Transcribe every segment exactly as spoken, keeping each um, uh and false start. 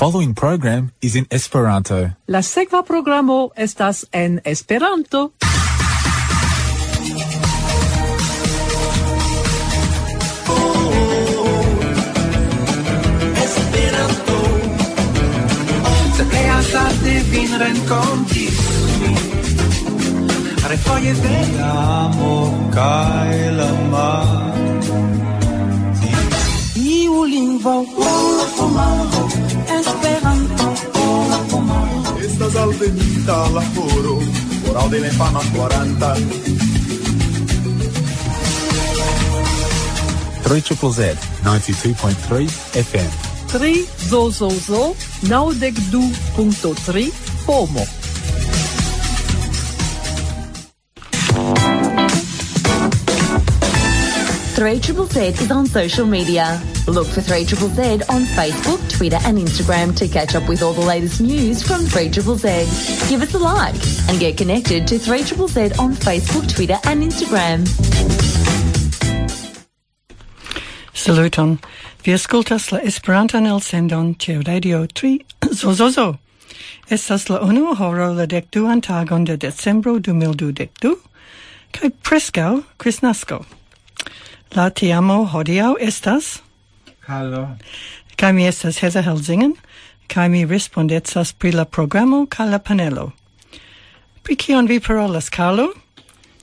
following program is in Esperanto. La sekva programo estas en Esperanto. Esperanto. Se plej hazarde vin renkontis, refoje de la amo kaj la mar. Iu lingvo, Esperanto, estas alvenita la horo, horo de la infana kvaranta. Three triple Z, ninety-two point three F M. Tri zo zo zo, naŭdek du punkto tri, pomo. Three triple Z is on social media. Look for three triple Z on Facebook, Twitter, and Instagram to catch up with all the latest news from three triple Z. Give us a like and get connected to three triple Z on Facebook, Twitter, and Instagram. Saluton. Vi aŭskultas la Esperantan elsendon ĉe Radio Tri Zozozo. Estas la unua horo, la dek duan tagon de decembro du mil dudek du, kaj preskaŭ Kristnasko. La teamo hodiaŭ estas Halo. Kaj mi estas Heza Helzingen, kaj mi respondecas pri la programo kaj la panelo. Pri kion vi parolas, Carlo?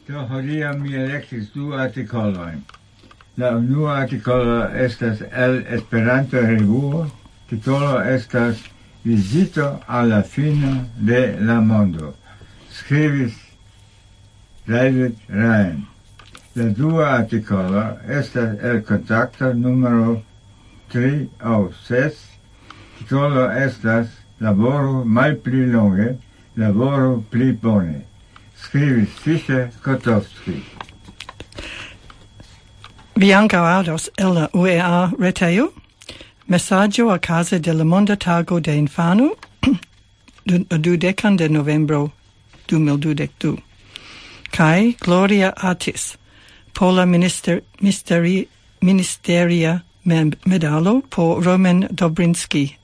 Do, hodiaŭ mi elektis du artikolojn. La unua artikolo estas el Esperanto-revuo, titolo estas Vizito al la fino de la mondo. Skribis David Ryan. La dua artikolo estas el Kontakto numero tri aŭ ses. Titolo estas Laboru malpli longe, laboru pli bone. Skribis Fischer Kotowski. Vi ankaŭ aŭdos el la U E A retejo mesaĝo okaze de la Monda Tago de Infano, du-, dudekan de novembro du mil dudek du. Kaj Gloria Atis, pola minister-, misteri-, ministeria mem-, medalo por Roman Dobrinski.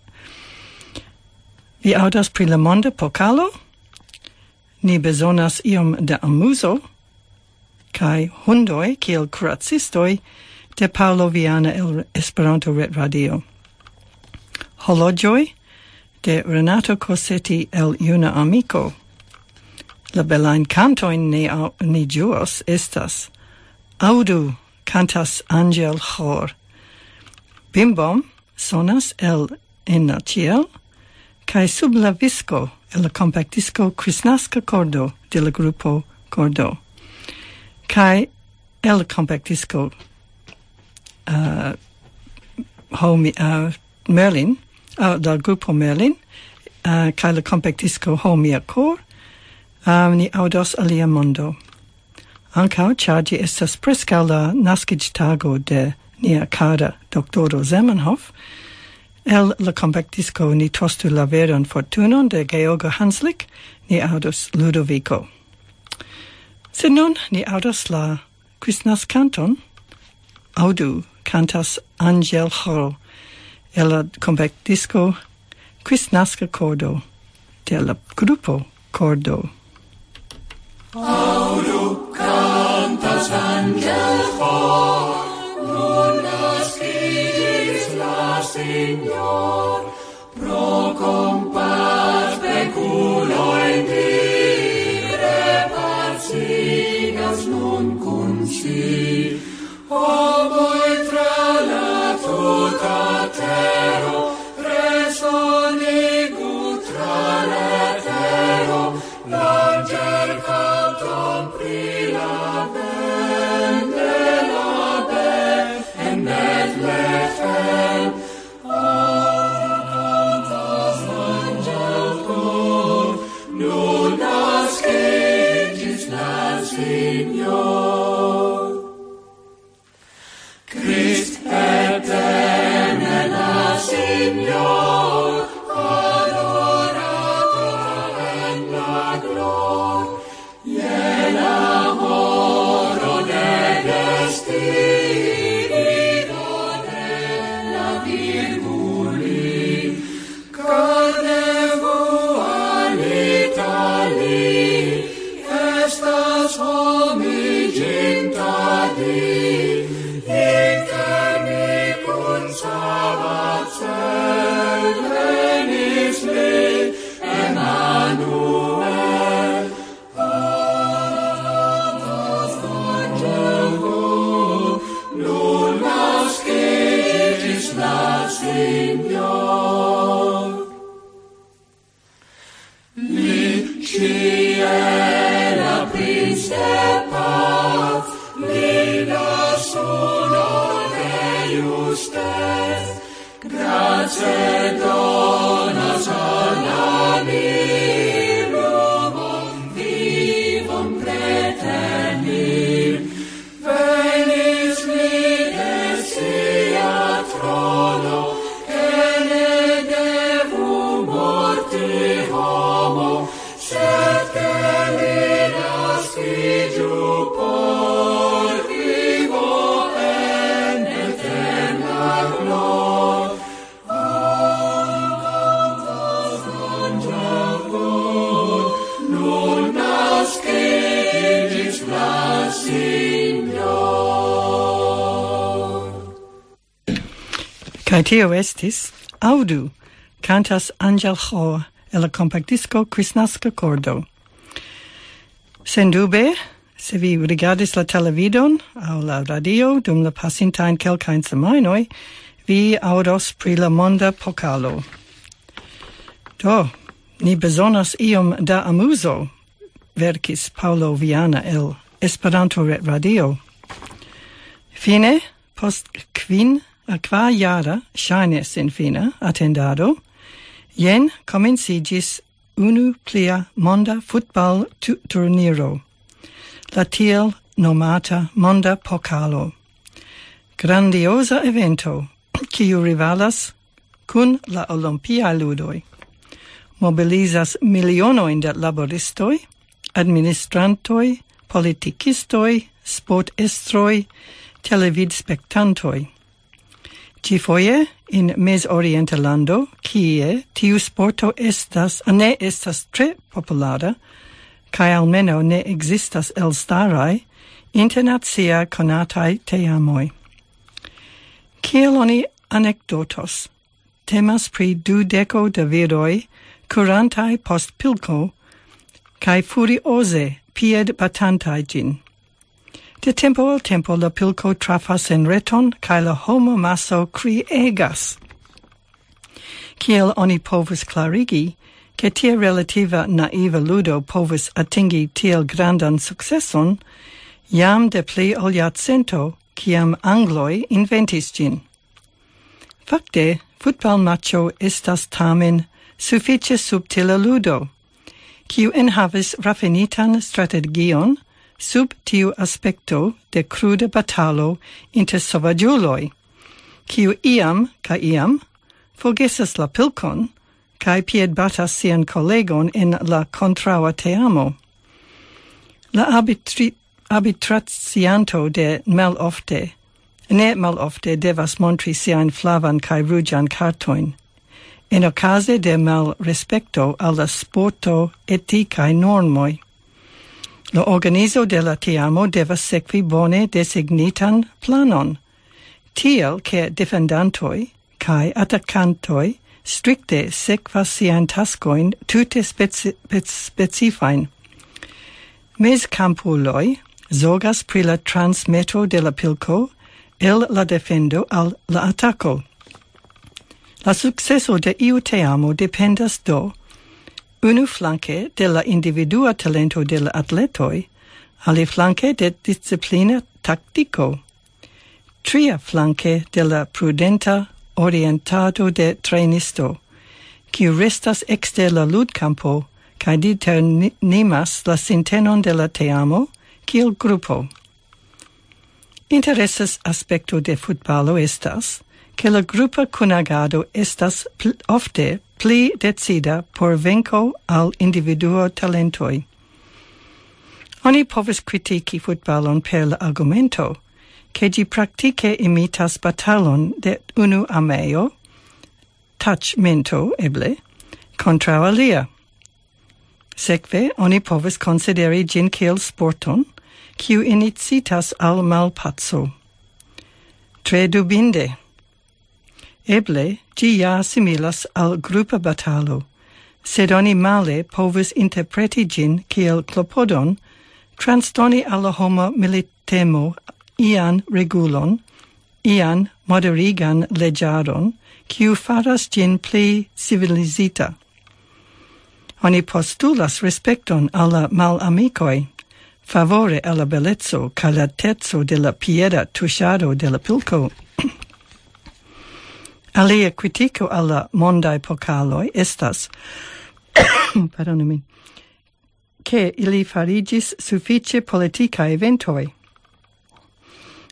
Vi aŭdas pri la Monda Pokalo? Ni bezonas iom da amuzo. Kaj hundoj kiel kuracistoj de Paolo Viana el Esperanto Ret Radio. Horloĝoj de Renato Cosetti el Juna Amiko. La belajn kantojn ni au-, ni ĝuos estas Aŭdu, kantas Angel Hor. Bimbom sonas el En la Ĉiel, kaj Sub la Visko el la kompaktdisko Kristnaska Kordo de la grupo Kordo. Kaj el la kompaktdisko, eh, Ho Mi-, eh, Merlin, eh, del grupo Merlin, eh, kaj la kompaktdisko Ho Mia Kor, eh, ni aŭdos Alia Mondo. Ankaŭ, ĉar ĝi estas preskaŭ la naskiĝtago de nia kara doktoro Zamenhof, el la kompaktdisko Ni tostu la veron fortunon de Georgo Hanslik, ni aŭdos Ludovico. Sed nun ni aŭdos la Kristnaskanton, Aŭdu, kantas Angel Hall, el la kompaktdisko Kristnaska Kordo de la grupo Kordo. Aŭdu, kantas Angel Hall, nun naskiĝis la Signor, pro kompass pekuloj ni repacigas nun kun si. Homoj tra la tuta tero, resonigu tra la tero, l'angelkanton pri la bende la be en Betlehem. Kaj tio estis Aŭdu, kantas Angel Ho el la kompaktdisko Kristnaska Kordo. Sendube, se vi rigardis la televidon aŭ la radio dum la pasintajn kelkajn semajnoj, vi aŭdos pri la monda pokalo. Do, ni bezonas iom da amuzo, verkis Paŭlo Viana el Esperanto Ret Radio. Fine, post kvin a kvar jara ŝajne senfina atendado, jen komenciĝis unu plia monda futbal-turniro, la tiel nomata Monda Pokalo. Grandioza evento, kiu rivalas kun la Olimpiaj Ludoj. Mobilizas milionojn da laboristoj, administrantoj, politikistoj, sportestroj, televidspektantoj. Ĉifoje en mezorienta lando, kie tiu sporto estas, ne estas tre populara, kaj almenaŭ ne ekzistas elstaraj internacia konataj teamoj. Kiel oni anekdotos? Temas pri dudeko da viroj kurantaj post pilko kaj furioze piedbatantaj ĝin. De tempo al tempo la pilko trafas en reton kaj la homo maso kriegas. Kiel oni povus klarigi, ke tia relativa naiva ludo povus atingi tiel grandan sukceson, jam de pli ol jarcento, kiam angloj inventis ĝin? Fakte, futbalmaĉo estas tamen sufiĉe subtila ludo, kiu enhavis rafinitan strategion sub tiu aspekto de kruda batalo inter sovaĝuloj, kiu iam kaj iam forgesas la pilkon kaj piedbatas sian kolegon en la kontraŭa teamo. La arbitri-, arbitracianto de malofte, ne malofte devas montri siajn flavan kaj ruĝan kartojn. En okaze de malrespekto al la sporto etikaj normoj, la organizo de la teamo devas sekvi bone designitan planon, tiel ke defendantoj kaj atakantoj strikte sekvas siajn taskojn tute speci-, spec-, specifajn. Mezkampuloj zorgas pri la transmeto de la pilko el la defendo al la atako. La sukceso de iu teamo dependas do unu flanke de la individua talento de la atletoj, aliflanke de disciplina taktiko, tria flanke de la prudenta orientado de trejnisto, kiu restas ekster la ludkampo kaj determinas la sintenon de la teamo kiel grupo. Interesas aspekto de futbalo estas, ke la grupa kunagado estas pl-, ofte pli decida por venko al individuo talentoj. Oni povas kritiki futbalon per la argumento, ke ĝi praktike imitas batalon de unu armeo, taĉmento eble, kontraŭ alia. Sekve, oni povas konsideri ĝin kiel sporton, kiu inicitas al malpaco. Tre dubinde. Eble, ĝi ja similas al grupa batalo, sed oni male povus interpreti ĝin kiel klopodon transdoni al la homo militemo ian regulon, ian moderigan leĝaron, kiu faras ĝin pli civilizita. Oni postulas respekton al la malamikoj, favore al la beleco kaj la teco de la pieda tuŝado de la pilko. Alia kritiko al la mondaj pokaloj estas, pardonu min, ke ili fariĝis sufiĉe politikaj eventoj.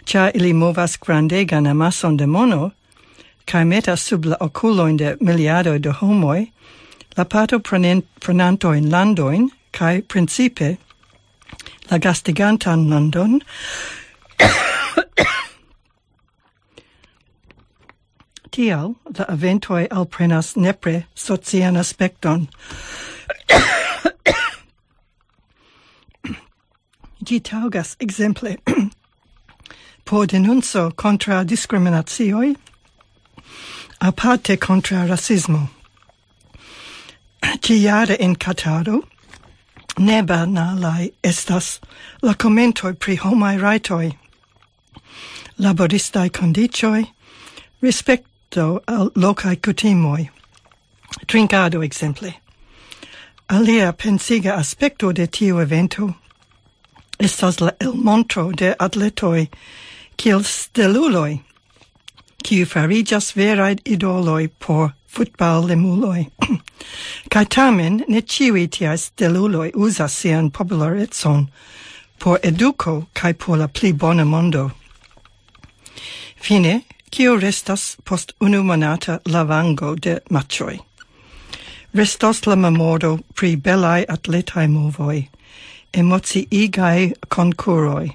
Ĉar ili movas grandegan amason de mono, kaj metas sub la okulojn de miliardoj de homoj, la partoprenen-, prenantojn landojn, kaj principe la gastigantan landon, tial la eventoj alprenas nepre socian aspekton. Ĝi taŭgas ekzemple por denunco kontraŭ diskriminacioj, Aparte kontraŭ rasismo. Ĉiare en Kataro ne banalaj estas la komentoj pri homaj rajtoj, laboristaj kondiĉoj, respekto al lokaj kutimoj, trinkado ekzemple. Alia pensiga aspekto de tiu evento estas la elmontro de atletoj kiel steluloj, kiu fariĝas veraj idoloj por futballemuloj. Kaj tamen ne ĉiuj tiaj steluloj uzas sian popularecon por eduko kaj por la pli bona mondo. Fine, kio restas post unu monata lavango de matĉoj? Restos la memoro pri belaj atletaj movoj, emociigaj konkuroj,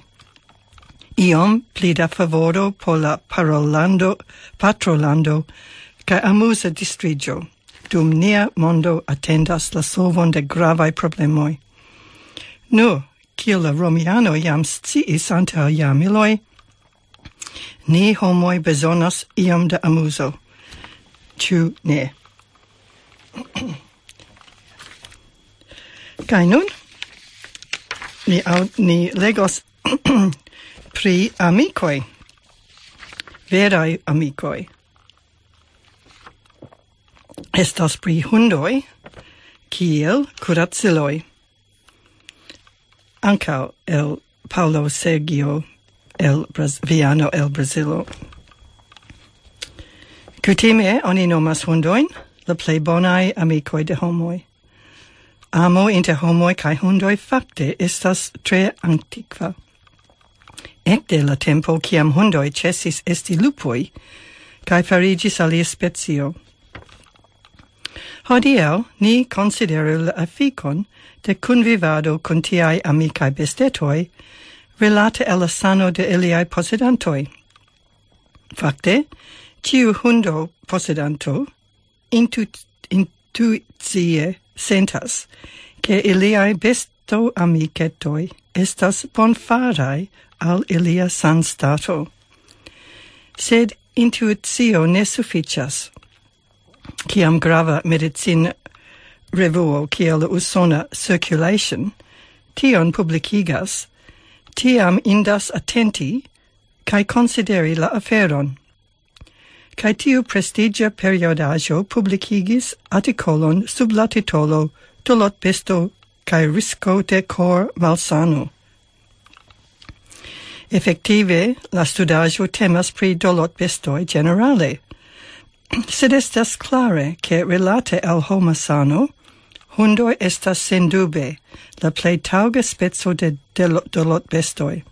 iom pli da favoro por la parolando, patrolando kaj amuza distriĝo, dum nia mondo atendas la solvon de gravaj problemoj. Nu, kiel la romianoj jam sciis antaŭ jarmiloj, ni homoj bezonas iom da amuzo. Ĉu ne? Kaj nun ni, au- ni legos pri amikoj, veraj amikoj. Estas pri hundoj kiel kuraciloj. Ankaŭ el Paulo Sergio el Braz- Viano el Brazilo. Kutime oni nomas hundojn la plej bonaj amikoj de homoj. Amo inter homoj kaj hundoj fakte estas tre antikva. Ekde la tempo kiam hundoj ĉesis esti lupoj kaj fariĝis alia specio. Hodiaŭ ni konsideru la efikon de kunvivado kun tiaj amikaj bestetoj rilate al la sano de iliaj posedantoj. Fakte, ĉiu hundo posedanto intu- intuicie sentas, ke iliaj bestoamiketoj estas bonfaraj al ilia sanstato. Sed intuicio ne sufiĉas. Kiam grava medicin revuo kiel la usona Circulation tion publikigas, tiam indas atenti kaj konsideri la aferon. Kaj tiu prestiĝa periodaĵo publikigis artikolon sub la titolo Dolotbesto kaj risko de kor malsano. Efektive, la studaĵo temas pri dolotbestoj ĝenerale. Sed estas klare, ke rilate al homa sano, hundoj estas sendube la plej taŭga speco de delo- dolotbestoj.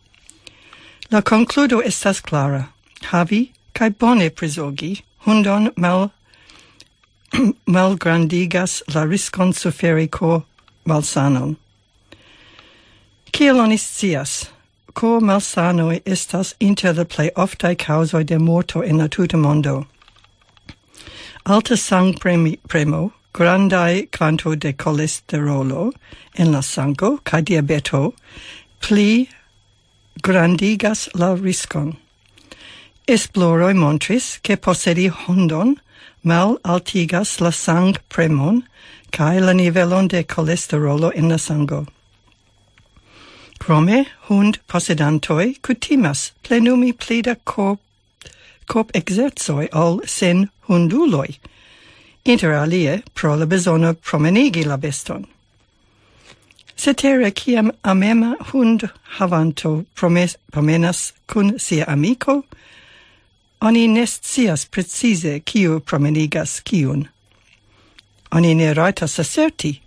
La konkludo estas klara. Havi kaj bone prizogi hundon mal- malgrandigas la riskon suferi ko malsanon. Kiel oni scias, ko malsanoj estas inter la plej oftaj kaŭzoj de morto en la tuta mondo. Alta sangpremo, grandaj kvanto de kolesterolo en la sango kaj diabeto pli grandigas la riskon. Esploroj montris, ke posedi hundon mal altigas la sangpremon kaj la nivelon de kolesterolo en la sango. Krome, hund posedantoj kutimas plenumi pli da korp, korp ekzercoj ol sen hunduloj. Inter alie, pro la bezono promenigi la beston. Cetere, kiam amema hund havanto promes- promenas kun sia amiko, oni ne scias precize kiu promenigas kiun. Oni ne rajtas aserti,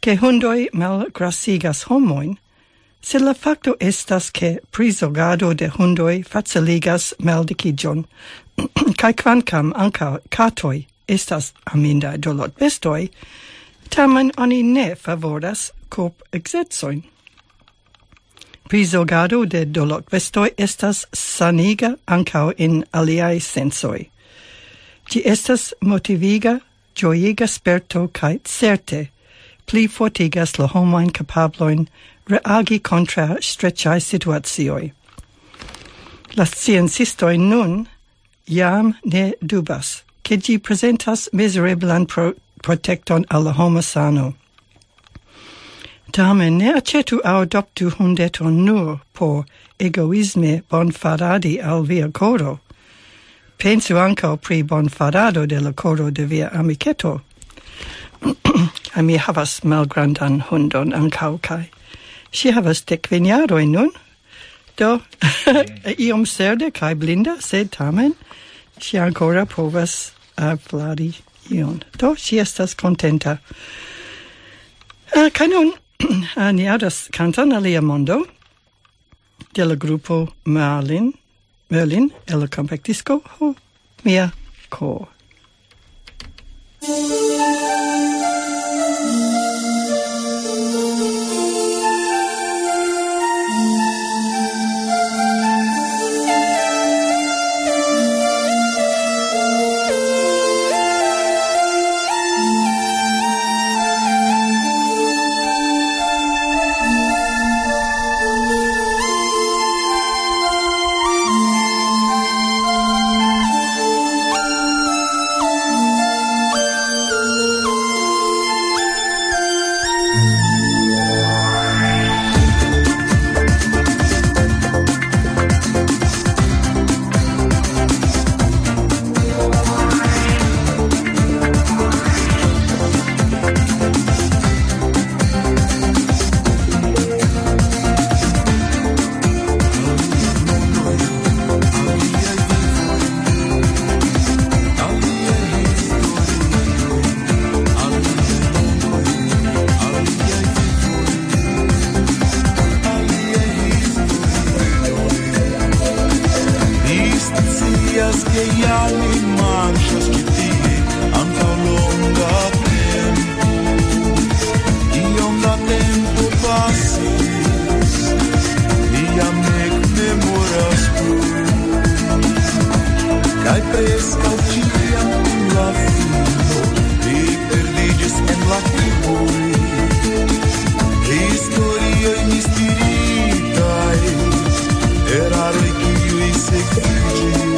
ke hundoj malgrasigas homojn, sed la fakto estas, ke prizorgado de hundoj faciligas maldikiĝon, kaj kvankam ankaŭ katoj estas amindaj dolotbestoj, tamen oni ne favoras korp ekzercojn. Prizorgado de dolotbestoj estas saniga ankaŭ en aliaj sensoj. Ĝi estas motiviga, ĝojiga sperto kaj certe pli fortigas la homajn kapablojn reagi kontraŭ streĉaj situacioj. La sciencistoj nun jam ne dubas, ke ĝi prezentas mizereblan pro-, protekton al la homa sano. Tamen ne aĉetu aŭ adoptu hundeton nur por egoisme bonfaradi al via koro. Pensu ankaŭ pri bonfarado de la koro de via amiketo. Kaj mi havas malgrandan hundon ankaŭ, kaj ŝi havas 15 jarojn nun. Do, iom serde kaj blinda, sed tamen ŝi ankoraŭ povas, eh, flari ion. Do, ŝi estas kontenta. Eh, kaj nun, eh, ni aŭdas kanton Alia Mondo de la grupo Merlin, Merlin, el la kompaktisko Ho Mia Ko. Scias che jam mi marŝas ĉi tie antaŭ longa tempo. Iom da tempo pasis, mi jam ne memoras plu. Kaj preskaŭ ĉiam kun la fino, li perdiĝis en la turboj. Historioj mistiritaj, eraroj kiuj sekviĝis,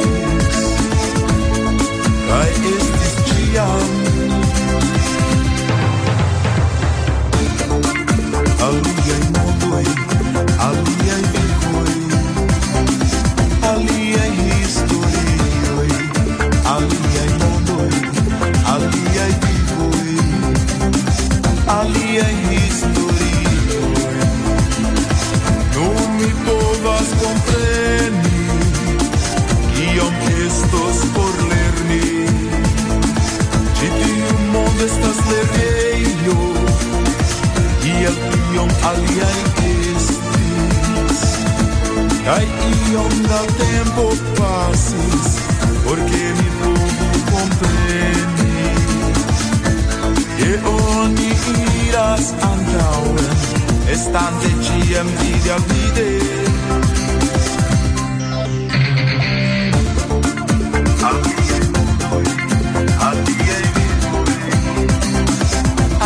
kaj estis ĉiam aliaj mondoj, aliaj vivoj, aliaj historioj, aliaj mondoj, aliaj vivoj, aliaj historioj. Nun mi povas kompreni, kiom estos por lerni. Ĉi tiu mondo estas lernejo, kiel iom aliaj estis. Kaj iom da tempo pasis, por ke mi povu kompreni, ke oni iras antaŭen, estante ĉiam vide al vide. Aliaj mondoj, aliaj vivoj,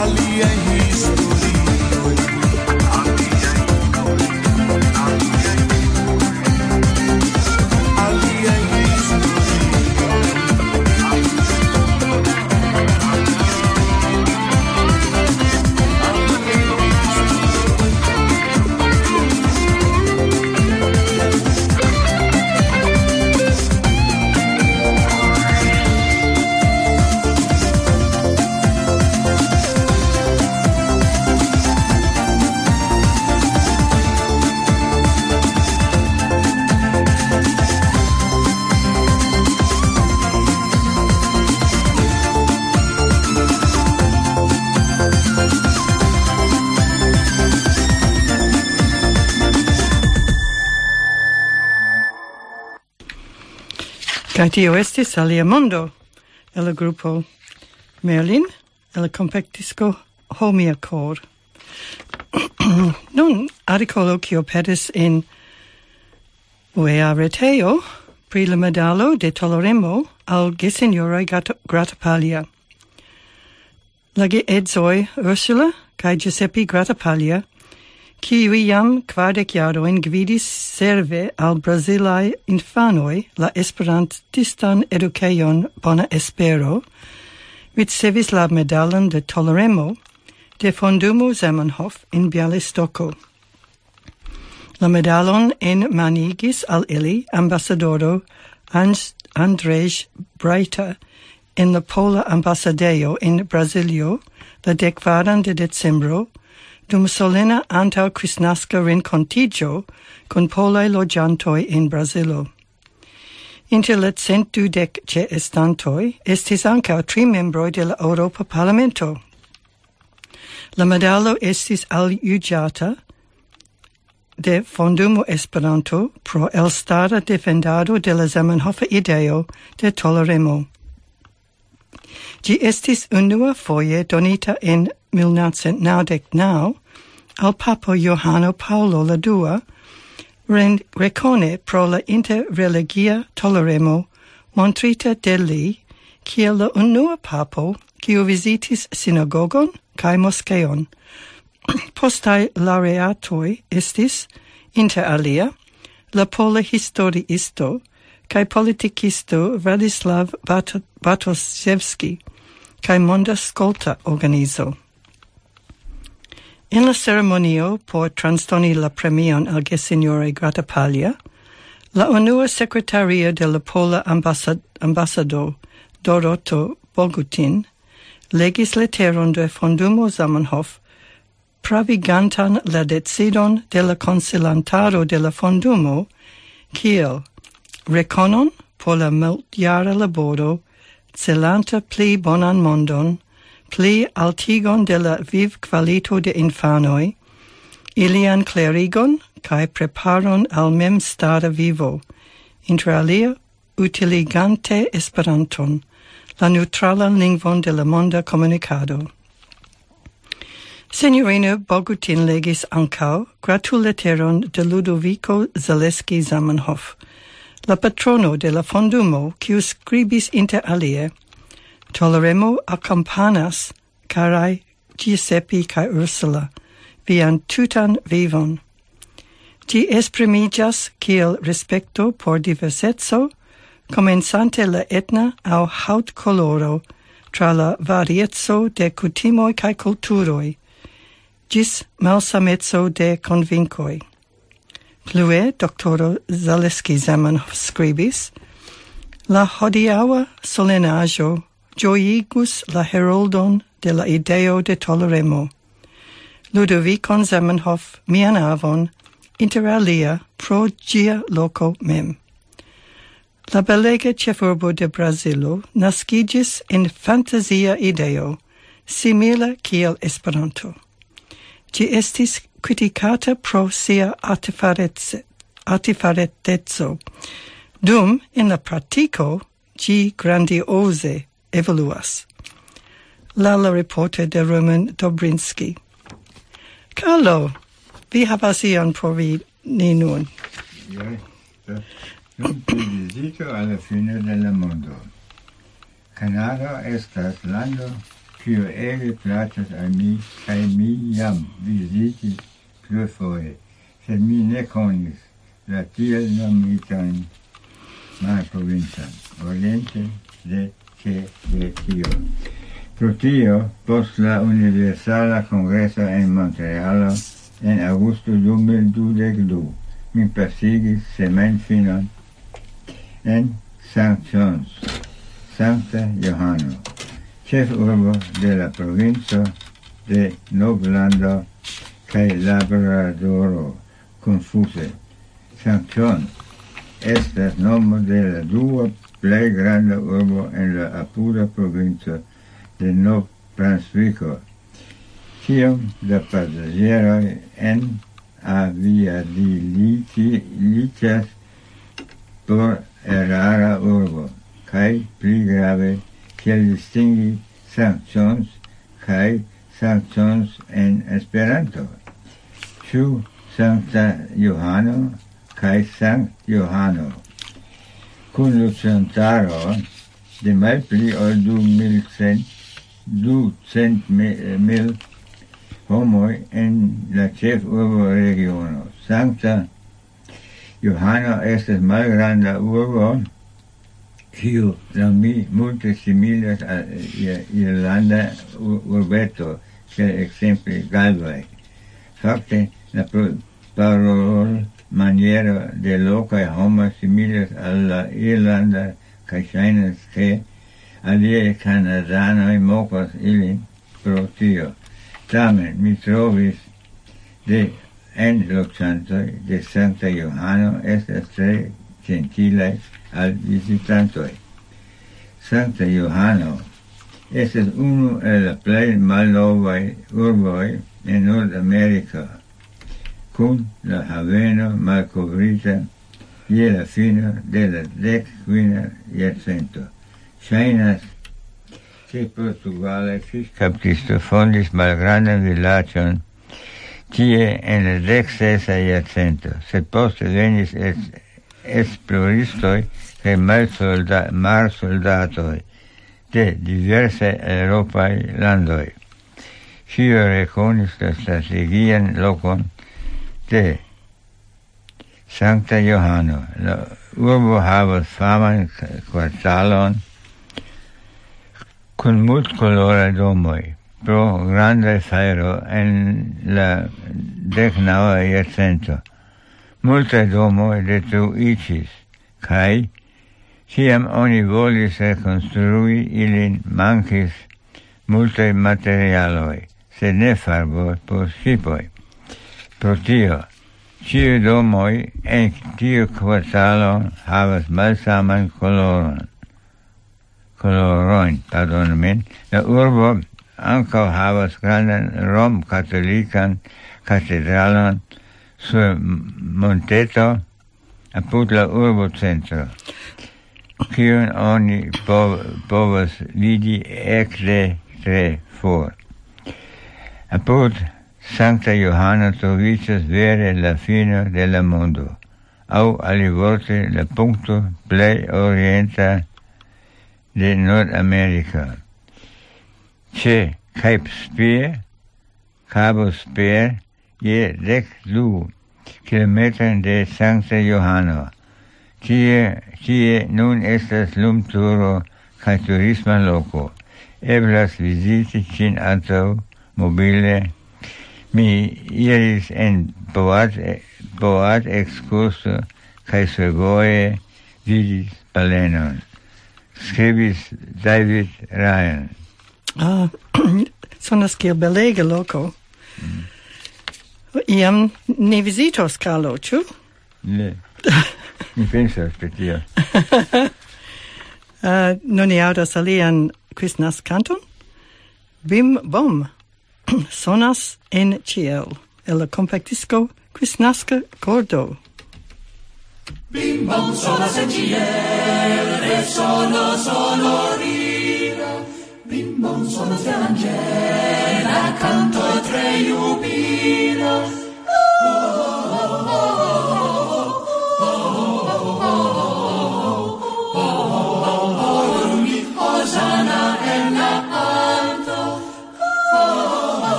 aliaj historioj, aliaj mondoj, aliaj vivoj, aliaj historioj. Kaj tio estis Alia Mondo, el la grupo Merlin, el la kompaktisko Homia Kor. Nun, artikolo kiu aperis en U E A retejo pri la medalo de toleremo al gesinjoroj Grat-, Gratapalia. La geedzoj Ursula kaj Giuseppe Gratapalia kiu jam kvardek jarojn gvidis serve al brazilaj infanoj la esperantistan edukejon Bona Espero, ricevis la medalon de toleremo de Fondumo Zamenhof en Bialystoko. La medalon enmanigis al ili ambasadoro Andrzej Brajta en la pola ambasadejo en Brazilio la dekvaran de decembro, dum solena antaŭ kristnaska renkontiĝo kun polaj loĝantoj en Brazilo. Inter la cent dudek ĉeestantoj estis ankaŭ tri membroj de la Eŭropa Parlamento. La medalo estis aljuĝata de Fondumo Esperanto pro elstara defendado de la Zamenhofa ideo de toleremo. Ĝi estis unua foje donita en mil novcent naŭdek naŭ al Papo Johano Paŭlo la dua, ren-, rekone pro la interreligia toleremo montrita de li kiel la unua papo, kiu vizitis sinagogon kaj moskeon. Postaj laureatoj estis, inter alia, la pola historiisto kaj politikisto Vladislav Bat-, Bartoszewski kaj Monda Skolta Organizo. En la ceremonio por transdoni la premion al gesinjoroj Grata Paglia, la unua sekretario de la pola ambasad-, ambasado Doroto Bogutin legis leteron de Fondumo Zamenhof pravigantan la decidon de la konsilantaro de la Fondumo kiel rekonon por la multjara laboro celanta pli bonan mondon, pli altigon de la vivkvalito de infanoj, ilian klerigon kaj preparon al memstara vivo, inter alia utiligante Esperanton, la neŭtralan lingvon de la monda komunikado. Sinjorino Bogutin legis ankaŭ gratulleteron de Ludovico Zaleski Zamenhof, la patrono de la fondumo, kiu skribis inter alie: "Toleremo akompanas, karaj Giuseppe kaj Ursula, vian tutan vivon." Ĝi esprimiĝas kiel respekto por diverseco, komencante la etna aŭ haŭtkoloro, tra la varieco de kutimoj kaj kulturoj, ĝis malsameco de konvinkoj. Plue, doktoro Zaleski Zamenhof skribis: "La hodiaŭa solenaĵo ĝojigus la heroldon de la ideo de toleremo, Ludovicon Zamenhof, mian avon, inter alia pro ĝia loko mem." La belega ĉefurbo de Brazilo naskiĝis en fantazia ideo, simila kiel Esperanto. Ĝi estis kritikata pro sia artefarece-, artefareteco, dum en la pratiko ĝi grandioze evoluas. La, la reporter de Roman Dobrinski. Carlo, vi havas ion por vi ni nun. Ja, nun pri vizito al la fino de la mondo. Kanado estas lando, kiu ege plaĉas al mi, kaj mi jam vizitis plurfoje, sed mi ne konis la tiel nomitan malprovincon, oriente de Tibetio. Pro tio, post la Universala Kongreso en Montrealo en aŭgusto du mil dudek du, mi pasigis semajnfinon en Saint John's, Sankta Johano, ĉefurbo de la provinco de Novlando kaj Labradoro, konfuze. Saint John estas nomo de la dua plej granda urbo en la apuda provinco de Nov-Brunsviko. Kiom da pasaĝeroj en aviadiliĝas por erara urbo, kaj pli grave, kiel distingi Saint John's kaj Saint John's en Esperanto? Ĉu Sankta Johano kaj Sankt Johano? Kun loĝantaro de malpli ol du mil cent, du cent mil, Homoj en la ĉefurbo regiono. Sankta Johano estas malgranda urbo, kiu laŭ mi multe similas al irlanda urbeto, kiel ekzemple Galway. Fakte, la parolmaniero de lokaj homoj similas al la irlanda, kaj ŝajnas, ke aliaj kanadanoj mokas ilin pro tio. Tamen mi trovis de en loĝantoj de Sankta Johano estas tre ĝentilaj al vizitantoj. Sankta Johano estas unu el la plej malnovaj urboj en Nordameriko, kun la haveno malkovrita je la fino de la dek kvina jarcento. Ŝajnas, ke portugala fiŝkaptisto fondis malgrandan vilaĝon tie en la dek sesa jarcento, sed poste venis es-, esploristoj kaj malsolda-, marsoldatoj de diversaj eŭropaj landoj. Ĉio rekonis la strategian lokon de Sankta Johano. La urbo havas faman k-, kvartalon kun multkoloraj domoj pro grandaj fajro en la dek naŭa jarcento. Multaj domoj detruiĝis, kaj kiam oni volis rekonstrui ilin, mankis multaj materialoj, sed ne farbo por ŝipoj. Pro tio, ĉiuj domoj en tiu kvartalo havas malsaman koloron. Kolorojn, pardonu min. La urbo ankaŭ havas grandan romkatolikan katedralon sur monteto apud la urbocentro, kiun oni po-, povas vidi ekde tre for. Apud Sankta Johano troviĝas vere la fino de la mondo, aŭ alivorte la punkto plej orienta de Nordameriko. Ĉe Cape Spear, Cabo Spear, je dek du kilometrojn de Sankta Johano. Tie, tie nun estas lumturo kaj turisma loko. Eblas viziti ĝin antaŭ mobile. Mi iris en boat, boat ekskurso kaj survoje vidis balenon. Skribis David Ryan. Ah, sonas kiel belega loko. Iam ni vizitos Kalo, ĉu? Ne. Mi pensas pri tio. Ah, nun ni aŭdas alian Christmas kanton. Bim Bom sonas en ĉiel, el la kompaktisko Kristnaska Kordo. Bim Bom sonas en ĉiel, resono sonorila. Bim Bom sonas de anĝela kanto tre jubila. Hosana en la alto.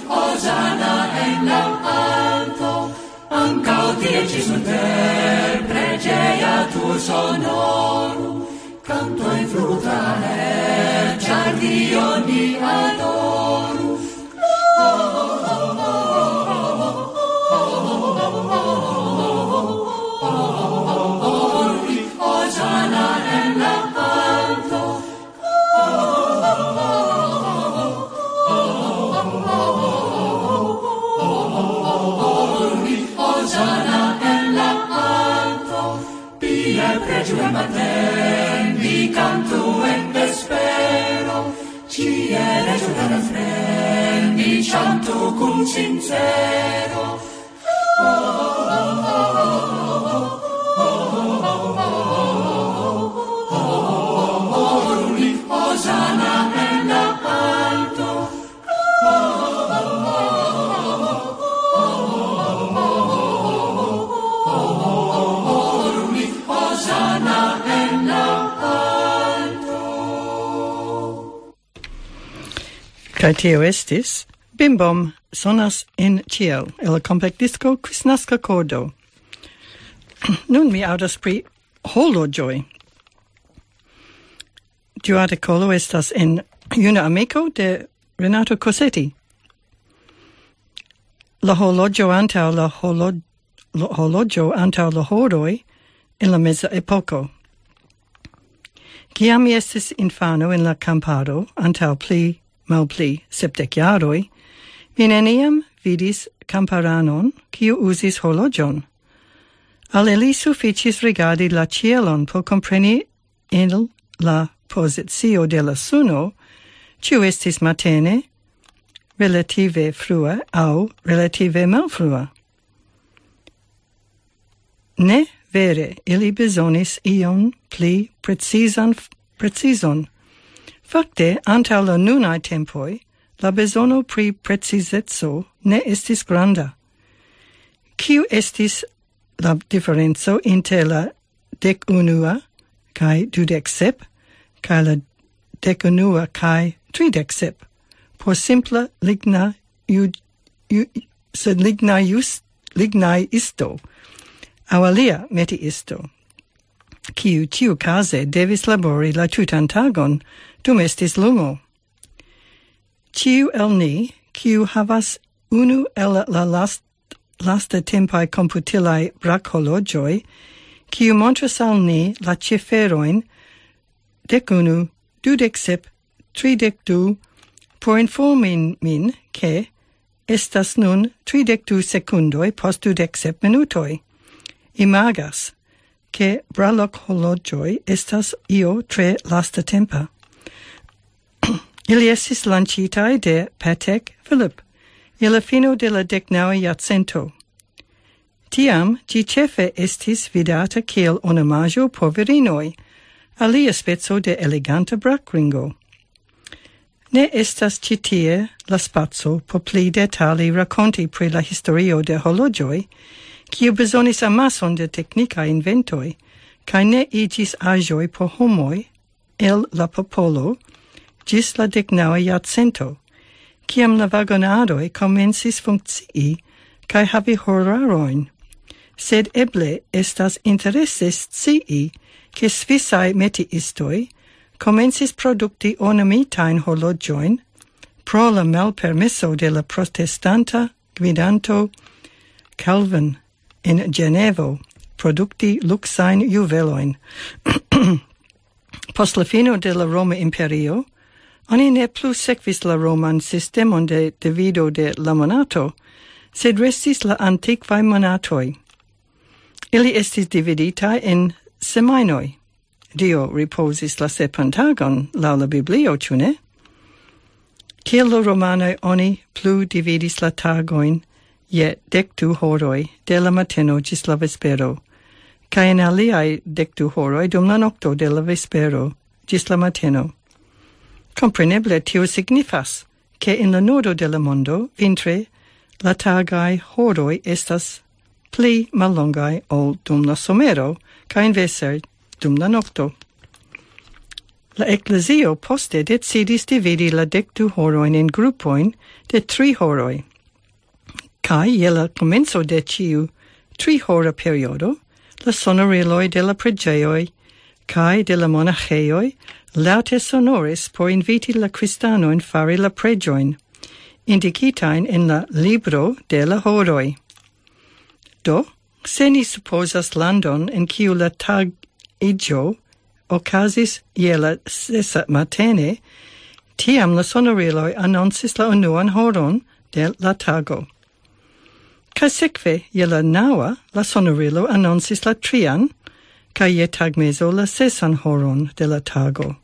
Hosana en la alto. Ankaŭ tie ĉi super preĝeja tur sonoru. Kantoj fluta, ĉar Dion ni adoru. Hosana en la alto. Hosana en la alto. Pie preĝu en matenni, kantu en vespero. Ĉie leĝu la refren, ni ĉantu kun sincero. Hosana en la alto. Hosana en la alto. Kaj tio estis Bim Bom sonas en ĉiel el la kompaktdisko Kristnaska Kordo. Nun mi aŭdas pri horloĝoj. Tiu artikolo estas en Juna Amiko de Renato Cosetti. La horloĝo antaŭ la horlo-, la horloĝo antaŭ la horoj en la meza epoko. Kiam mi estis infano en la kamparo antaŭ pli malpli sepdek jaroj, mi neniam vidis kamparanon, kiu uzis horloĝon. Al ili sufiĉis rigardi la ĉielon por kompreni en la pozicio de la suno, ĉu estis matene, relative frue aŭ relative malfrue. Ne vere, ili bezonis ion pli precizan, precizon. Fakte, antaŭ la nunaj tempoj, la bezono pri precizeco ne estis granda. Kiu estis la diferenco inter la dek unua kaj dudek sep, kaj la dek unua kaj tridek sep? Por simpla ligna ju-, ju-, sed ligna jus-, lignaj isto, aŭ alia metiisto, kiu ĉiukaze devis labori la tutan tagon, dum estis lumo. Ĉiu el ni, kiu havas unu el la last-, lasta tempaj komputilaj brakhorloĝoj, kiu montras al ni la ciferojn dek unu, dudek sep, tridek du, por informi min, ke estas nun tridek du sekundoj post dudek sep minutoj. Imagas, ke brakhorloĝoj estas io tre lastatempa. Ili estis lanĉitaj de Patek Philippe je la fino de la dek naŭa jarcento. Tiam ĝi ĉefe estis vidata kiel ornamaĵo por virinoj, alia speco de eleganta brakringo. Ne estas ĉi tie la spaco por pli detale rakonti pri la historio de horloĝoj, kiu bezonis amason de teknikaj inventoj, kaj ne iĝis aĵoj por homoj el la popolo ĝis la dek naŭa jarcento, kiam la vagonaroj komencis funkcii kaj havi horarojn. Sed eble estas interese scii, ke svisaj metiistoj komencis produkti ornamitajn horloĝojn pro la malpermeso de la protestanta gvidanto Calvin en Ĝenevo produkti luksajn juvelojn. Post la fino de la Roma Imperio, oni ne plu sekvis la roman sistemon de divido de la monato, sed restis la antikvaj monatoj. Ili estis dividitaj en semajnoj. Dio ripozis la sepan tagon, laŭ la Biblio, ĉu ne? Kiel la romanoj oni plu dividis la tagojn je dek du horoj de la mateno ĝis la vespero, kaj en aliaj dek du horoj dum la nokto de la vespero ĝis la mateno. Kompreneble tio signifas, ke en la nordo de la mondo vintre la tagaj horoj estas pli mallongaj ol dum la somero, kaj inverse dum la nokto. La eklezio poste decidis dividi la dek du horojn en grupojn de tri horoj. Kaj je la komenco de ĉiu tri hora periodo, la sonoriloj de la preĝejoj kaj de la monaĥejoj laŭte sonoris por inviti la kristanojn fari la preĝojn, indikitajn en la libro de la horoj. Do, se ni supozas landon en kiu la tagiĝo okazis je la sesa matene, tiam la sonoriloj anoncis la unuan horon de la tago. Kaj sekve je la naŭa la sonorilo anoncis la trian, kaj je tagmezo la sesan horon de la tago.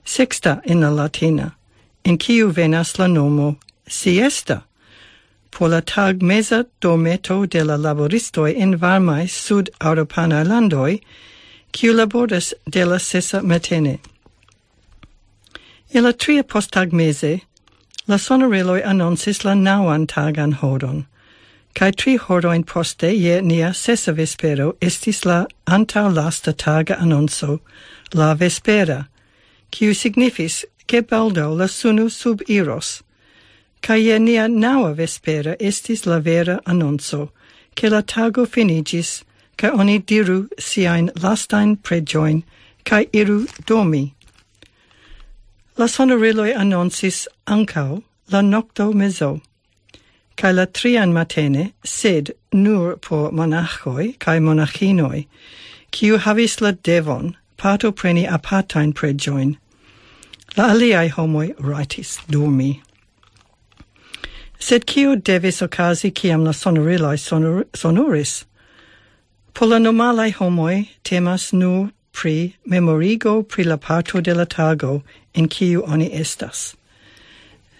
Sexta en la latina, en kiu venas la nomo siesta, por la tagmeza dormeto de la laboristoj en varmaj sud-eŭropanaj landoj, kiu laboras de la sesa matene. Je la tria posttagmeze, la sonoriloj anoncis la naŭan tagan horon, kaj tri horojn poste je nia sesa vespero estis la antaŭlasta taga anonco, la vespera, kiu signifis, ke baldaŭ la suno subiros. Kaj je nia naŭa vespera estis la vera anonco, ke la tago finiĝis, kaj oni diru siajn lastajn preĝojn, kaj iru dormi. La sonoriloj anoncis ankaŭ la nokto mezo, kaj la trian matene, sed nur por monaĥoj kaj monaĥinoj, kiu havis la devon partopreni apartajn preĝojn. La aliaj homoj rajtis dormi. Sed kio devis okazi, kiam la sonoriloj sonor-, sonoris? Por la normalaj homoj temas nur pri memorigo pri la parto de la tago en kiu oni estas.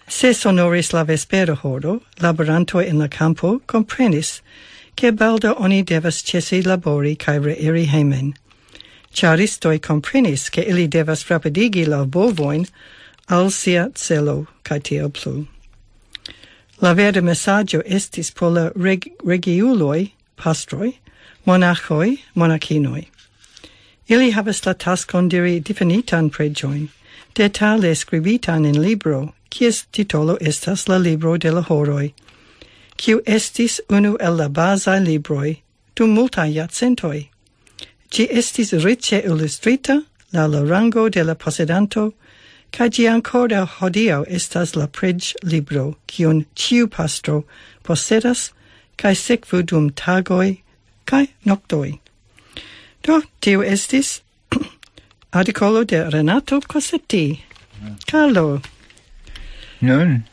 Se sonoris la vespera horo, laborantoj en la kampo komprenis, ke baldaŭ oni devas ĉesi labori kaj reiri hejmen. Ĉaristoj komprenis, ke ili devas rapidigi la bovojn al sia celo, kaj tiel plu. La verda mesaĝo estis por la reg-, regiuloj, pastroj, monaĥoj, monakinoj. Ili havas la taskon diri difinitan preĝojn, detale skribitan en libro, kies titolo estas la libro de la horoj, kiu estis unu el la bazaj libroj dum multaj jarcentoj. Ĝi estis riĉe ilustrita laŭ la rango de la posedanto, kaj ĝi ankoraŭ hodiaŭ estas la preĝlibro, kiun ĉiu pastro posedas, kaj sekvu dum tagoj kaj noktoj. Do, tiu estis artikolo de Renato Cosetti. Carlo, Nun,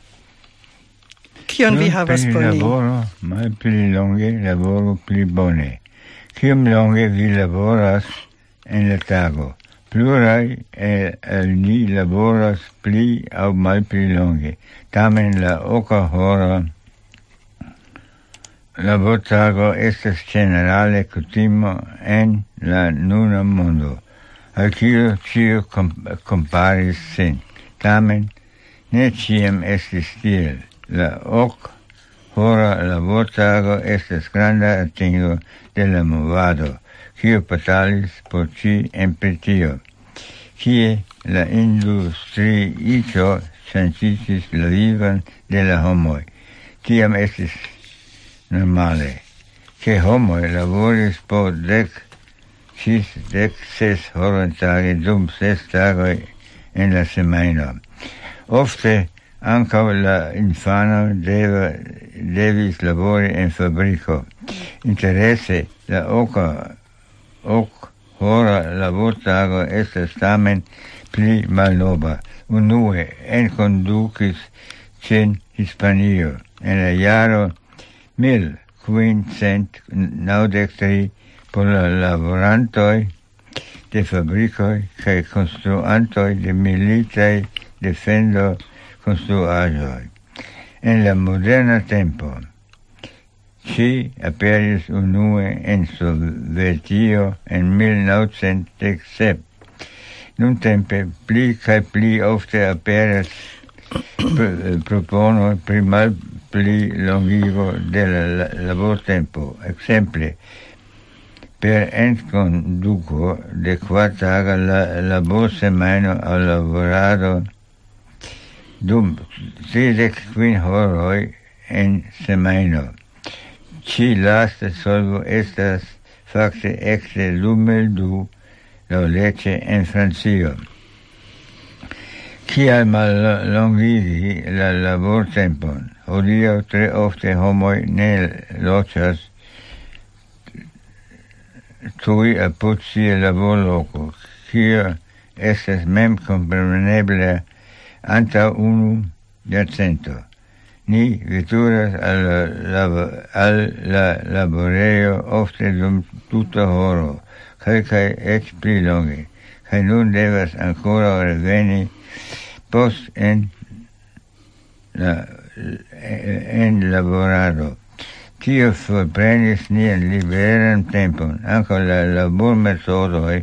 kion vi nun havas por ni? Laboro, malpli longe, laboro pli bone. Kiom longe vi laboras en la tago? Pluraj el, el ni laboras pli aŭ malpli longe. Tamen la oka hora labortago estas ĝenerale kutimo en la nuna mondo, al kiu ĉiu kom-, komparis sin. Tamen, ne ĉiam estis tiel. La ok hora labortago estas granda atingo de la movado, kiu batalis por ĝi en Britio, kie la industriiĝo ŝanĝiĝis la vivon de la homoj. Tiam estis normale, ke homoj laboris po dek ĝis dek ses horoj tage dum ses tagoj en la semajno. Ofte ankaŭ la infano deva, devis labori en fabriko. Interese, la oka, ok hora labortago estas tamen pli malnova. Unue enkondukis ĝin Hispanio en la jaro mil kvin cent naŭdek tri por la laborantoj de fabrikoj kaj konstruantoj de militaj defendo konstruaĵoj. En la moderna tempo, ŝi aperis unue en Sovetio en mil naŭcent dek sep. Nuntempe pli kaj pli ofte aperas pr-, proponoj pri malpli longigo de la la-, labortempo. Ekzemple, per enkonduko de kvartaga la laborsemajno al laborado dum tridek kvin horoj en semajno. Ĉi lasta solvo estas fakte ekde du mil du laŭleĝe en Francio. Kial mallongigi la labortempon? Hodiaŭ tre ofte homoj ne loĝas tuj apud sia laborloko, kio estas memkompreneble antaŭ unu jarcento. Ni veturas al la, al la laborejo ofte dum tuta horo, kelkaj eĉ pli longe, kaj nun devas ankoraŭ reveni post en la, en laborado. Tio forprenis nian liberan tempon. Ankaŭ la labormetodoj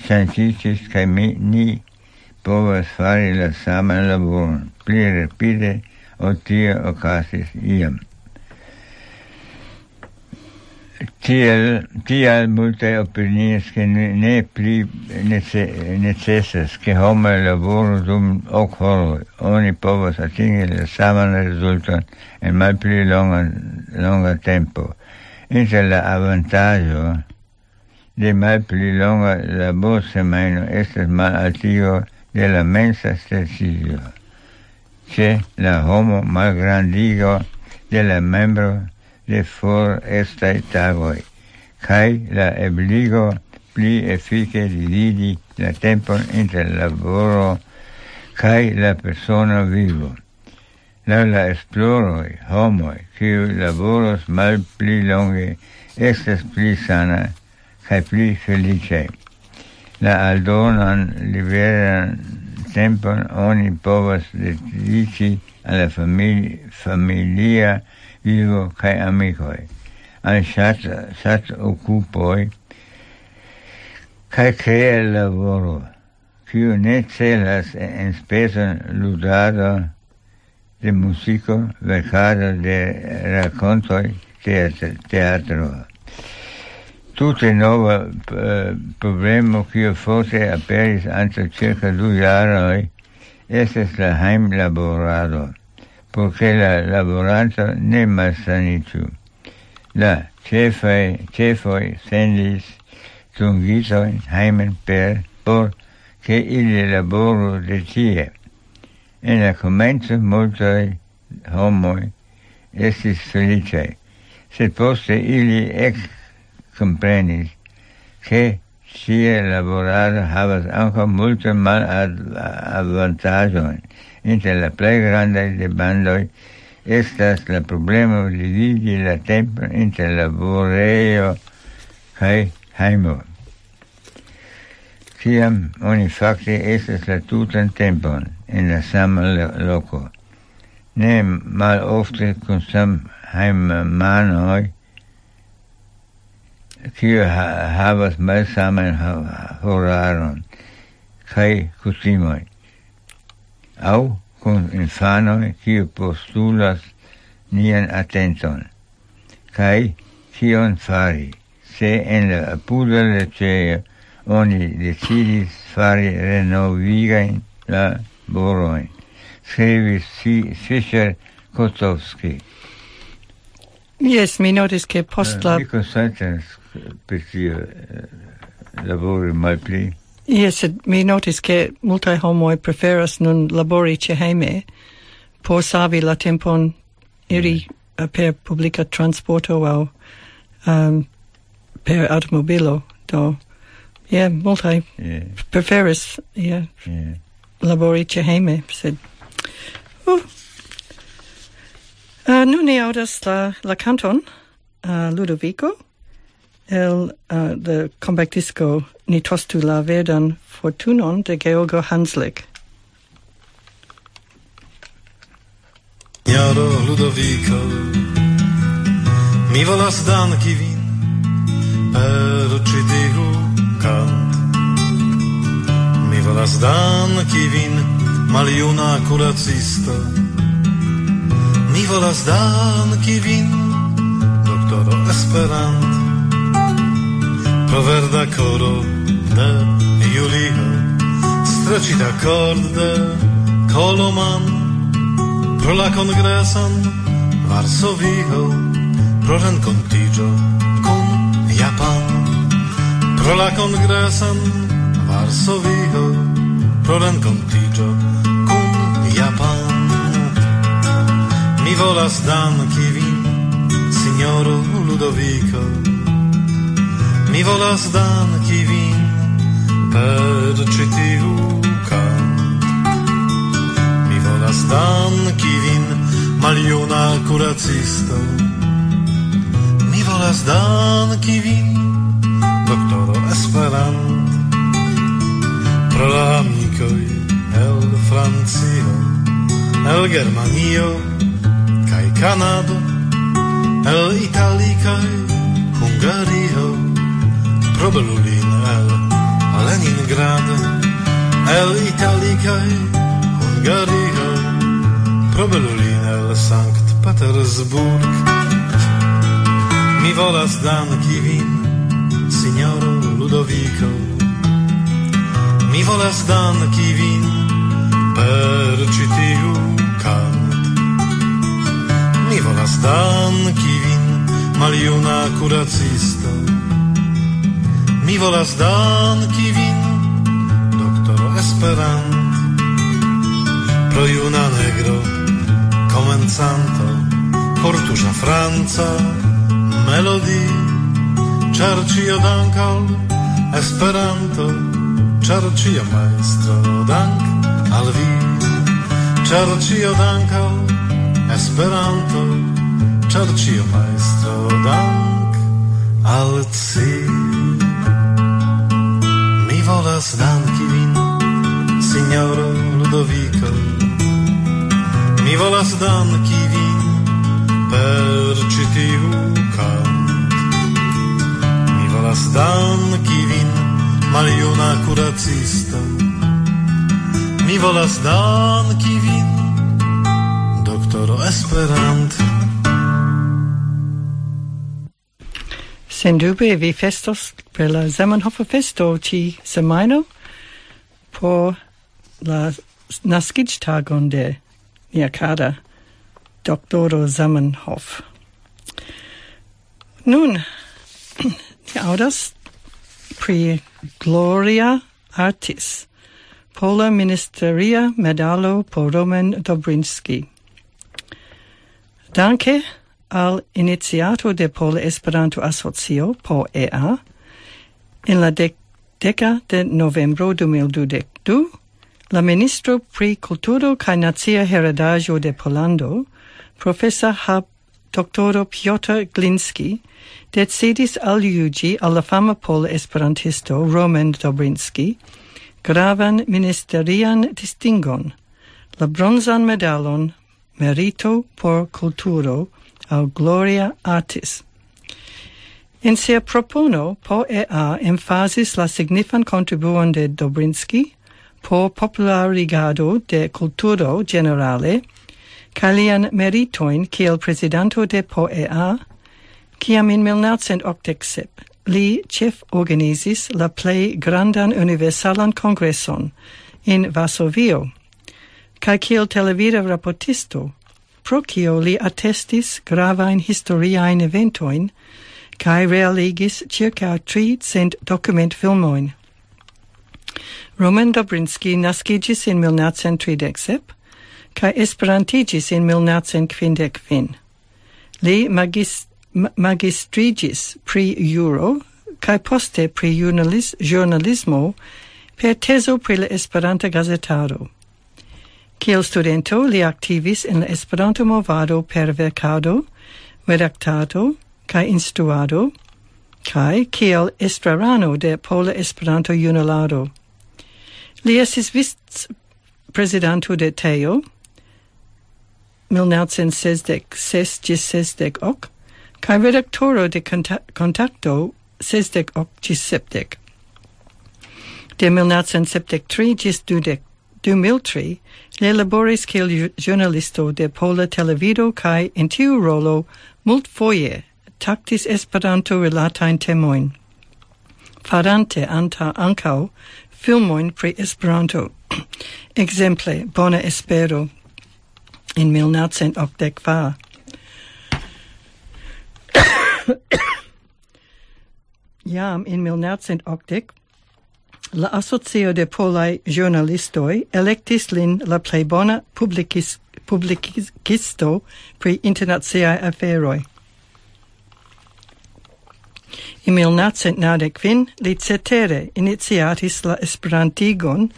ŝanĝiĝis, kaj mi, ni povas fari la saman laboron pli rapide, ol tio okazis iam. Tiel, tial multaj opinias, ke ne, ne pli nece-, necesas, ke homoj laboru dum ok horoj. Oni povas atingi la saman rezulton en malpli longa, longa tempo. Inter la avantaĝo de malpli longa laborsemajno estas malaltigo de la mensa streĉiĝo. Ĉe la homo malgrandigo de la membro de forestaj tagoj, kaj la ebligo pli efike dividi la tempon inter laboro kaj la persona vivo. Laŭ la esploroj, homoj, kiuj laboros malpli longe, estas pli sana kaj pli feliĉaj. La aldonan liberan tempon oni povas dediĉi al la famili-, familia vivo kaj amikoj, al ŝat-, ŝat-okupoj kaj krea laboro, kiu ne celas en spezon ludado de muziko, verkado de rakontoj, teatr-, teatro. Tute nova, eh, problemo, kiu forte aperis antaŭ cirka du jaroj, estas la hejmlaborado, por ke la laboranto ne malsaniĝu. La ĉefaj, ĉefoj sendis dungitojn hejmen per, por ke ili laboru de tie. En la komenco multaj homoj estis feliĉaj, sed poste ili ekkomprenis, ke tie laborado havas ankaŭ multajn malavantaĝojn. Inter la plej grandaj demandoj estas la problemo dividi la tempon inter laborejo kaj hejmo. Kiam oni fakte estas la tutan tempon en la sama lo-, loko. Ne malofte kun samhejmanoj, kiuj ha-, havas malsaman ha-, horaron kaj kutimoj, aŭ kun infanoj, kiu postulas nian atenton. Kaj kion fari, se en la apuda leĝejo oni decidis fari renovigajn laborojn? Skribis Fi-, Fischer Kotowski. Jes, mi notis, ke post la... Mi konsentas pri tio, eh, labori malpli. Jes, sed mi notis, ke multaj homoj preferas nun labori ĉe hejme por savi la tempon iri, eh, per publika transporto aŭ, ehm, per aŭtomobilo. Do, je, multaj... Je. Preferas, je, je, labori ĉe hejme, sed... Uh. Eh, nun ni aŭdas la, la kanton, eh, Ludovico, el, eh, the compact disco Ni tostu la verdan fortunon de Georgo Hanslik. Signoro Ludovico, mi volas danki vin per ĉi tiu kant. Mi volas danki vin, maljuna kuracisto. Mi volas danki vin, doktoro Esperant, pro verda koro de Julio, streĉita kord de Koloman, pro la kongreson Varsovio, pro renkontiĝo kun Japan, pro la kongreson Varsovio, pro renkontiĝo kun Japan. Mi volas danki vin, signoro Ludovico. Mi volas danki vin per ĉi tiu kant. Mi volas danki vin, maljuna kuracisto. Mi volas danki vin, doktoro Esperant, pro la amikoj el Francio, el Germanio kaj Kanado, el Italio kaj Hungario, pro belulin el Leningrad, el Italio kaj Hungario, pro belulin el Sankt Petersburg. Mi volas danki vin, sinjoro Ludoviko. Mi volas danki vin per ĉi tiu kant. Mi volas danki vin, maljuna kuracisto. Mi volas danki vin, doktoro Esperant, pro juna negro, komencanto, kortuŝa franca melodi, ĉar ĉio dank al Esperanto, ĉar ĉio majstro dank al vi, ĉar ĉio dank al Esperanto, ĉar ĉio majstro dank al ci. Mi volas danki vin, sinjoro Ludoviko. Mi volas danki vin per ĉi tiu kant. Mi volas danki vin, maljuna kuracisto. Mi volas danki vin, doktoro Esperant. Sendube vi festos per la Zamenhof festo ĉi semajno por la naskiĝtagon de nia kara doktoro Zamenhof. Nun, ni aŭdas pri Gloria Artis, pola ministeria medalo por Roman Dobrinski. Danke al iniciato de Pola Esperanto Asocio, P E A, en la dek-, deka de novembro du mil dudek du, la ministro pri kulturo kaj nacia heredaĵo de Pollando, profesor Hab doktoro Piotr Glinski, decidis aljuĝi al la fama pola esperantisto Roman Dobrinski gravan ministerian distingon, la bronzan medalon Merito por Kulturo aŭ Gloria Artis. En sia propono, P E A emfazis la signifan kontribuon de Dobrinski por popularigado de kulturo ĝenerale, kaj lian meritojn kiel prezidanto de P E A, kiam en mil naŭcent okdek sep li ĉeforganizis la plej grandan universalan kongreson en Varsovio, kaj kiel televida raportisto, pro kio li atestis gravajn historiajn eventojn, kaj realigis ĉirkaŭ tricent dokumentfilmojn. Roman Dobrinski naskiĝis en mil naŭcent tridek sep, kaj esperantiĝis en mil naŭcent kvindek kvin. Li magis-, ma-, magistriĝis pri juro, kaj poste pri ĵurnalis-, ĵurnalismo per tezo pri la Esperanta gazetaro. Kiel studento li aktivis en la Esperanto-movado per verkado, redaktado kaj instruado, kaj kiel estrarano de Pola Esperanto-Junularo. Li estis vic-prezidanto de Tejo, mil naŭcent sesdek ses ĝis sesdek ok, kaj redaktoro de Konta-, Kontakto sesdek ok ĝis sepdek. De mil naŭcent sepdek tri ĝis dudek, du mil tri, li laboris kiel ju-, ĵurnalisto de Pola Televido kaj en tiu rolo multfoje taktis Esperanto-rilatajn temojn, farante anta-, ankaŭ filmojn pri Esperanto. Ekzemple, Bona Espero en mil naŭcent okdek kvar. Jam en mil naŭcent okdek, la Asocio de Polaj Ĵurnalistoj elektis lin la plej bona publikis-, publikisto pri internaciaj aferoj. En mil naŭcent naŭdek kvin li cetere iniciatis la esperantigon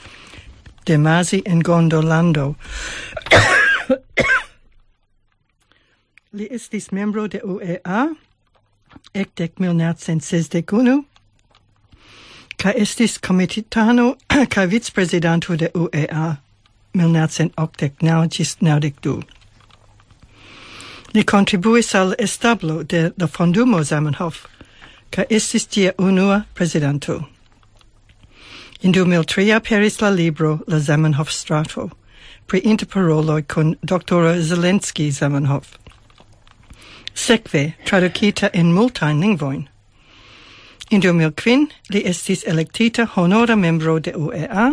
de Mazi en Gondolando. Li estis membro de U E A ekde mil naŭcent sesdek unu, kaj estis komitatano kaj vicprezidanto de U E A mil naŭcent okdek naŭ ĝis naŭdek du. Li kontribuis al establo de la Fondumo Zamenhof, kaj estis ĝia unua prezidanto. En du mil tri aperis la libro La Zamenhof-strato, pri interparoloj kun doktoro Zelensky Zamenhof. Sekve tradukita en multajn lingvojn. En du mil kvin li estis elektita honora membro de U E A,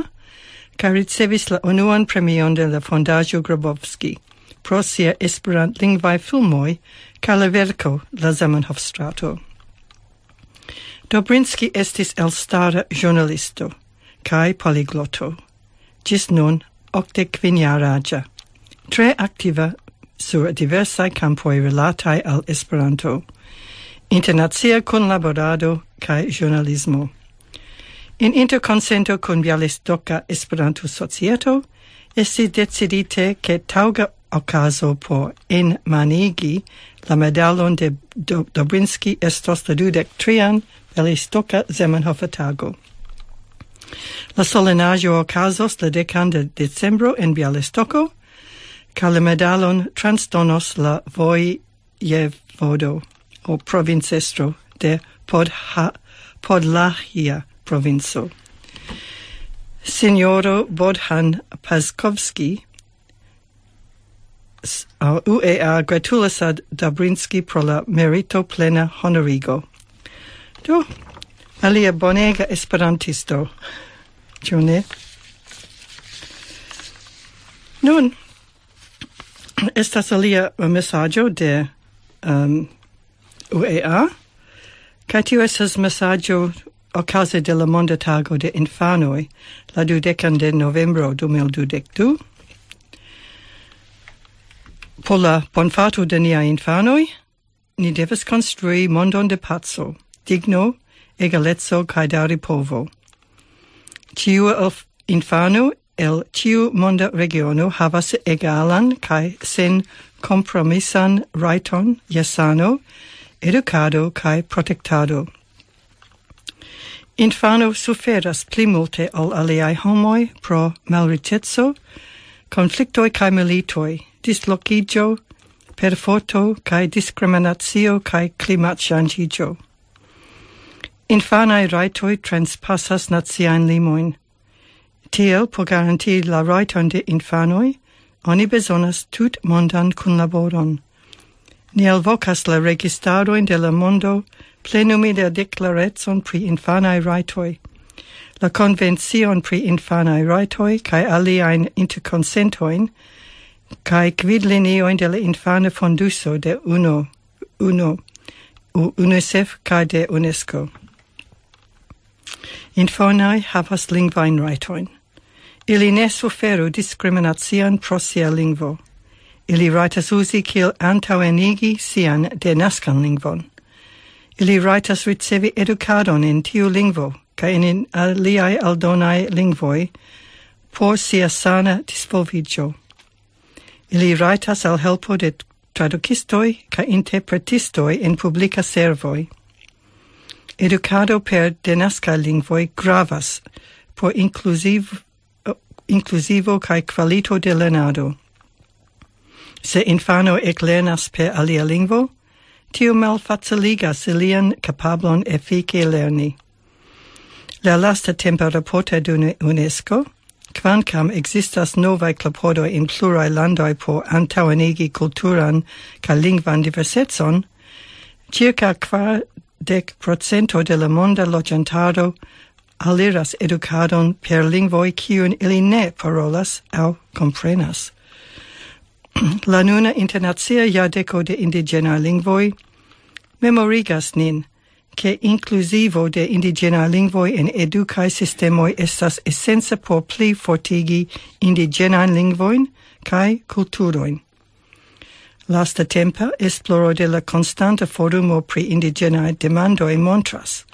kaj ricevis la unuan premion de la Fondaĵo Grabowski pro sia esperantlingvaj filmoj kaj la verko La Zamenhof-strato. Dobrinski estis elstara ĵurnalisto kaj poligloto, ĝis nun okdek kvin jaraĝa, tre aktiva sur diversaj kampoj rilataj al Esperanto, internacia kunlaborado kaj ĵurnalismo. En interkonsento kun Bialistoka Esperanto-Societo estis decidite, ke taŭga okazo por enmanigi la medalon de Do- Dobrinski estos la dudek trian Bialistoka Zamenhof-tago. La solenaĵo okazos la dekan de decembro en Bialistoko, kaj la medalon transdonos la vojevodo o provincestro de Podha- Podlahia provinco. Sinjoro Bodhan Paskovski, s- a- U E A gratulas al Dobrinski pro la merito plena honorigo. Do, alia bonega esperantisto, ĉu ne? Nun, estas alia mesaĝo de um, U E A, kaj tio estas mesaĝo okaze de la Monda Tago de Infanoj, la dudekan de novembro du mil dudek du. Por la bonfato de niaj infanoj, ni devas konstrui mondon de paco, digno, egaleco kaj daripovo. Ĉiu el f- infano el ĉiu monda regiono havas egalan kaj sen kompromisan rajton je sano, edukado kaj protektado. Infano suferas pli multe ol aliaj homoj pro malriĉeco, konfliktoj kaj militoj, dislokiĝo, perforto kaj diskriminacio kaj klimatŝanĝiĝo. Infanaj rajtoj transpasas naciajn limojn. Tiel, por garantii la rajton de infanoj, oni bezonas tutmondan kunlaboron. Ni alvokas la registarojn de la mondo plenumi la deklarecon pri infanaj rajtoj, la konvencion pri infanaj rajtoj kaj aliajn interkonsentojn kaj gvidliniojn de la Infana Fonduso de UNO, UNO, U- UNICEF kaj de UNESCO. Infanoj havas lingvajn rajtojn. Ili ne suferu diskriminacion pro sia lingvo. Ili rajtas uzi kiel antaŭenigi sian denaskan lingvon. Ili rajtas ricevi edukadon en tiu lingvo kaj en aliaj aldonaj lingvoj por sia sana disvolviĝo. Ili rajtas al helpo de tradukistoj kaj interpretistoj en publika servoj. Edukado per denaskaj lingvoj gravas por inkluziv- inkluzivo kaj kvalito de lernado. Se infano eklernas per alia lingvo, tio malfaciligas ilian kapablon efike lerni. La lasta tempa raporto de UNESCO, kvankam ekzistas novaj klopodoj en pluraj landoj por antaŭenigi kulturan kaj lingvan diversecon, circa kvardek procento de la monda loĝantaro aliras edukadon per lingvoj kiujn ili ne parolas aŭ komprenas. La nuna internacia jardeko de indiĝenaj lingvoj memorigas nin, ke inkluzivo de indiĝenaj lingvoj en edukaj sistemoj estas esenca por pli fortigi indiĝenajn lingvojn kaj kulturojn. Lastatempa esploro de la konstanta forumo pri indiĝenaj demandoj montras,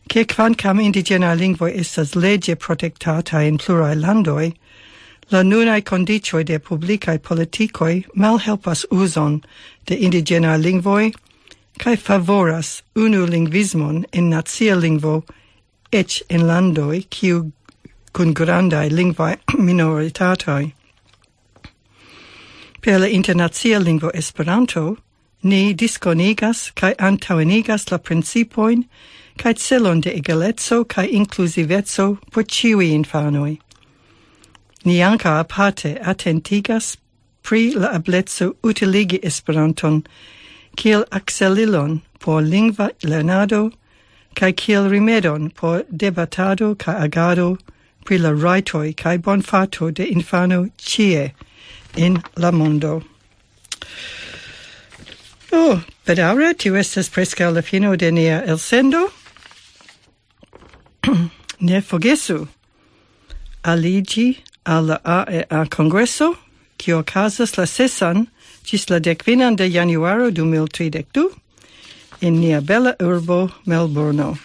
ke kvankam indiĝenaj lingvoj estas leĝe protektataj en pluraj landoj, la nunaj kondiĉoj de publikaj politikoj malhelpas uzon de indiĝenaj lingvoj kaj favoras unu lingvismon en nacia lingvo, eĉ en landoj kiu kun grandaj lingvaj minoritatoj. Per la internacia lingvo Esperanto, ni diskonigas kaj antaŭenigas la principojn kaj celon de egaleco kaj inkluziveco por ĉiuj infanoj. Ni ankaŭ aparte atentigas pri la ebleco utiligi Esperanton kiel akselilon por lingva lernado, kaj kiel rimedon por debatado kaj agado pri la rajtoj kaj bonfato de infano ĉie en la mondo. Oh, bedaŭre, tio estas preskaŭ la fino de nia elsendo. Ne forgesu aliĝi al la A E A Kongreso, kio okazas la sesan ĝis la dek finan de januaro du mil tridek du en nia bela urbo Melburno.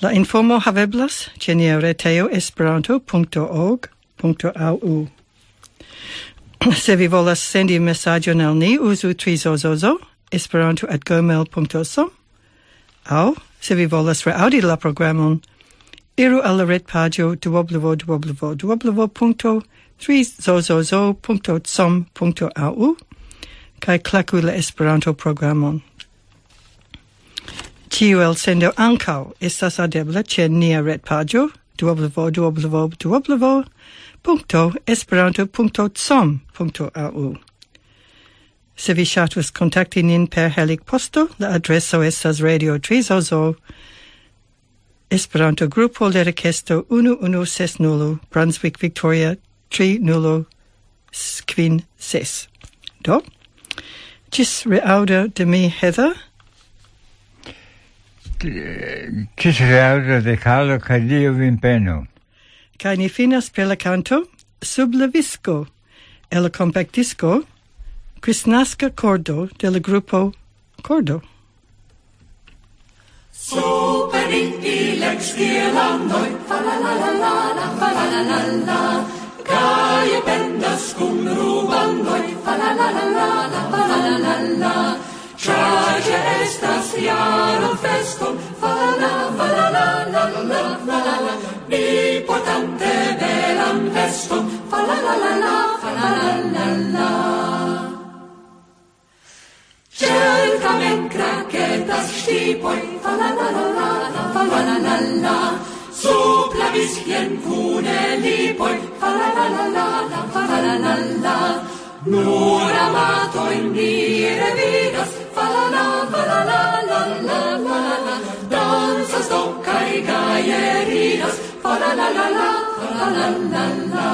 La informo haveblas ĉe nia retejo esperanto.org.au. Se vi volas sendi mesaĝon al ni, uzu trizozozo esperanto@gmail.com, aŭ se vi volas reaŭdi la programon, iru al la retpaĝo www.trizozozo.com.au kaj klaku la Esperanto-programon. Ĉiu elsendo ankaŭ estas adebla ĉe nia retpaĝo www.esperanto.com.au. Se vi ŝatus kontakti nin per Helig Posto, la adreso estas Radio Trizozo, Esperanto-grupo, Lerekesto unu unu ses nul, Brunswick, Victoria tri nul kvin ses. Do, ĝis reaŭdo de mi, Heather. Ĝis reaŭdo de Carlo, kaj Dio vin benu. Kaj ni finas per la kanto Sub la visko, el la kompaktdisko Kristnaska Kordo de la grupo Kordo. Super Inti lex Irlandoj, fa la la la la la, fa la la la la. Gaje pendas kun rubandoj, fa la la la la la, fa la la la la. Ĉar ĝi estas jaro feston, fa la la, fa la la la la, fa la la. Mi portante belan veston, fa la la la la, fa la la la la. Ĉirkaŭen kraketas ŝipoj, fa la la la la, fa la la la la. Sub la viskien kune lipoj, fa la la la la, fa la la la la. Nur amatojn mi revidas, fa la la, fa la la la la, fa la la. Dancas do kaj gaje ridas, fa la la la la, fa la la la la.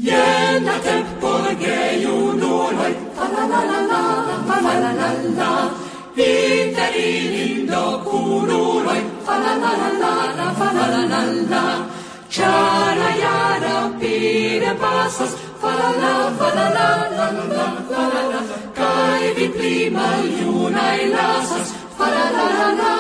Jen la temp por gejunuloj, fa la la la la, fa la la la la. Inter ilin do kunuloj, fa la la la la, fa la la la la. Ĉar la jaro rapide pasas, fa la la, fa la la la la, fa la la. Kaj vi pli maljunaj lasas, fa la la la la,